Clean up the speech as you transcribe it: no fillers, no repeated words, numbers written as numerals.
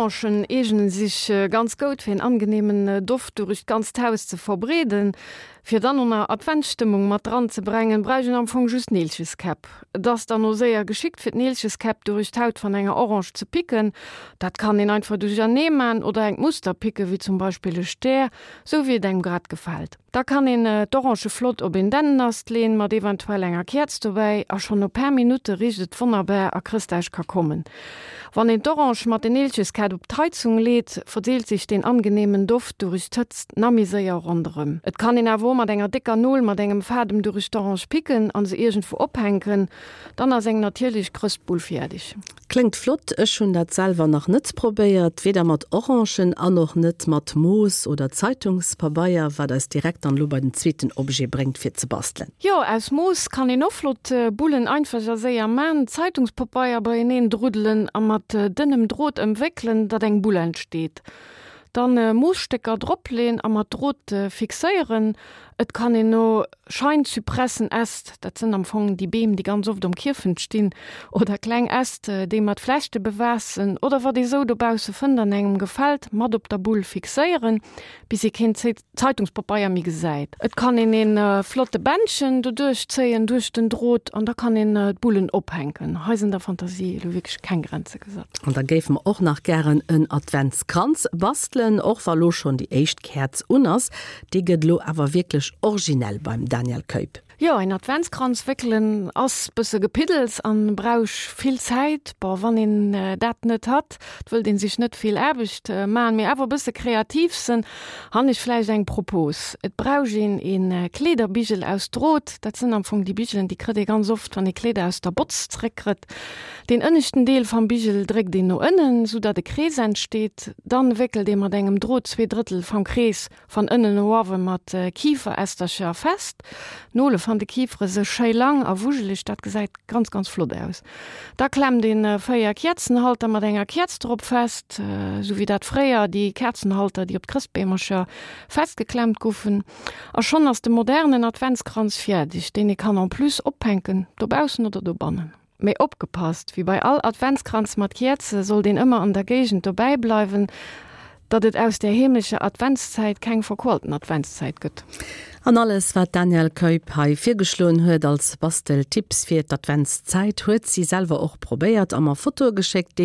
Orangen eegnen sich ganz goud fir een angenehmen Doft durich d'ganzt Haus ze verbreeden. Fir dann o na Adventsstëmmung mat dran ze brengen, bräuch een am Fong just Neelcheskäpp. Et ass dann o séier geschickt fir d'Neelcheskäpp durich d'Haut van enger Orange ze picken. Dat kann een einfach duerchernee man oder engt Muster picken, wéi zum Beispill e Stär, sou wéi et engem grad gefällt. Da kann een d'Orange flott op een Dännenast leen, mat eventuell enger Käerz dobäi, a schonn no paar Minutte richt et wonnerbar a Chrëschtdag ka kommen. Wann een d'Orange mat den Neelcheskätt op d'Heizung leet, verdeelt sich deen angenehmen Doft durich d'Hëtzt na méi séier ronderëm. Et kann een awer o mat enger décker Nol mat engem Fadem durich d'Orange picken an se iergendwou ophänken, dann ass eng natierlich Chrëstbull fiärdig. Kléngt flott, ech hunn dat selwer nach net probéiert, weder mat Orangen an och net mat Moos oder Zeitungspabeier, wat eis direkt dann elo bei den zweeten Objet bréngt fir ze bastelen. Jo, aus Moos kann een och flott Bullen einfach a séier man. Zeitungspabeier beieneen druddelen a mat dënnem Drot ëmwéckelen, datt eng Bull entsteet. Dann Moosstécker dropleen a mat Drot fixéieren. Et kann een no Scheinzypressenäst, dat sënn am Fong déi Beem, déi ganz oft um Kierfent stinn, oder kleng Äst, déi mat Flechte bewaass sënn, oder wat ee sou dobausse fënnt an engem gefält, mat op der Bull fixéieren, bis ee keen Zeitungspapeier méi gesäit. Et kann een een flotte Bändchen doduerch zéien, duerch den Drot, an da kann een d'Bullen ophänken. Hei sënn der Fantasie elo wierklech keng Grenze gesat. An da géife mer och nach gären en Adventskranz bastelen, och wa lo schonn déi éischt Käerz un ass. Dee gëtt elo awer wierklech originell beim Daniel Keup. Jo, een Adventskranz wéckelen ass bësse Gepiddels an brausch vill Zäit. Bon, wann een dat net hat, et wëllt een sech net vill Aarbecht man, mee awer bësse kreativ sen, han ech vläicht eng Propos. Et brausch een een Kleederbigel aus Drot, dat sënn am Fong déi Bigelen, déi krëtt ee ganz oft, wann ee Kleeder aus der Botz zréck krëtt. Deen ënneschten Deel vam Bigel dréckt een no ënnen, sou datt e Krees entsteet. Dann wéckelt ee mat engem Drot 2/3 vam Krees van ënnen no uawen mat Kiferästercher fest. D'Nole van de Kifere se schéi lang a wujeleg, dat gesäit ganz ganz flott aus. Da klemmt een 4 Käerzenhalter mat enger Käerz drop fest, sou wéi dat fréier déi Käerzenhalter, déi op d'Chrëstbeemercher festgeklemmt guffen. A schonn ass de modernen Adventskranz fiärdeg, deen ee kann en plus ophänken, dobaussen oder dobannen. Mee opgepasst, wéi bei all Adventskranz mat Käerze sollt een ëmmer an der Géigend dobäi bleiwen, datt et aus där heemlecher Adventszäit keng verqualten Adventszäit gëtt. An alles wat d'Danièle Keup hei virgeschloen huet als Basteltipps fir d'Adventszäit huet si selwer och probéiert a mer Fotoe geschéckt.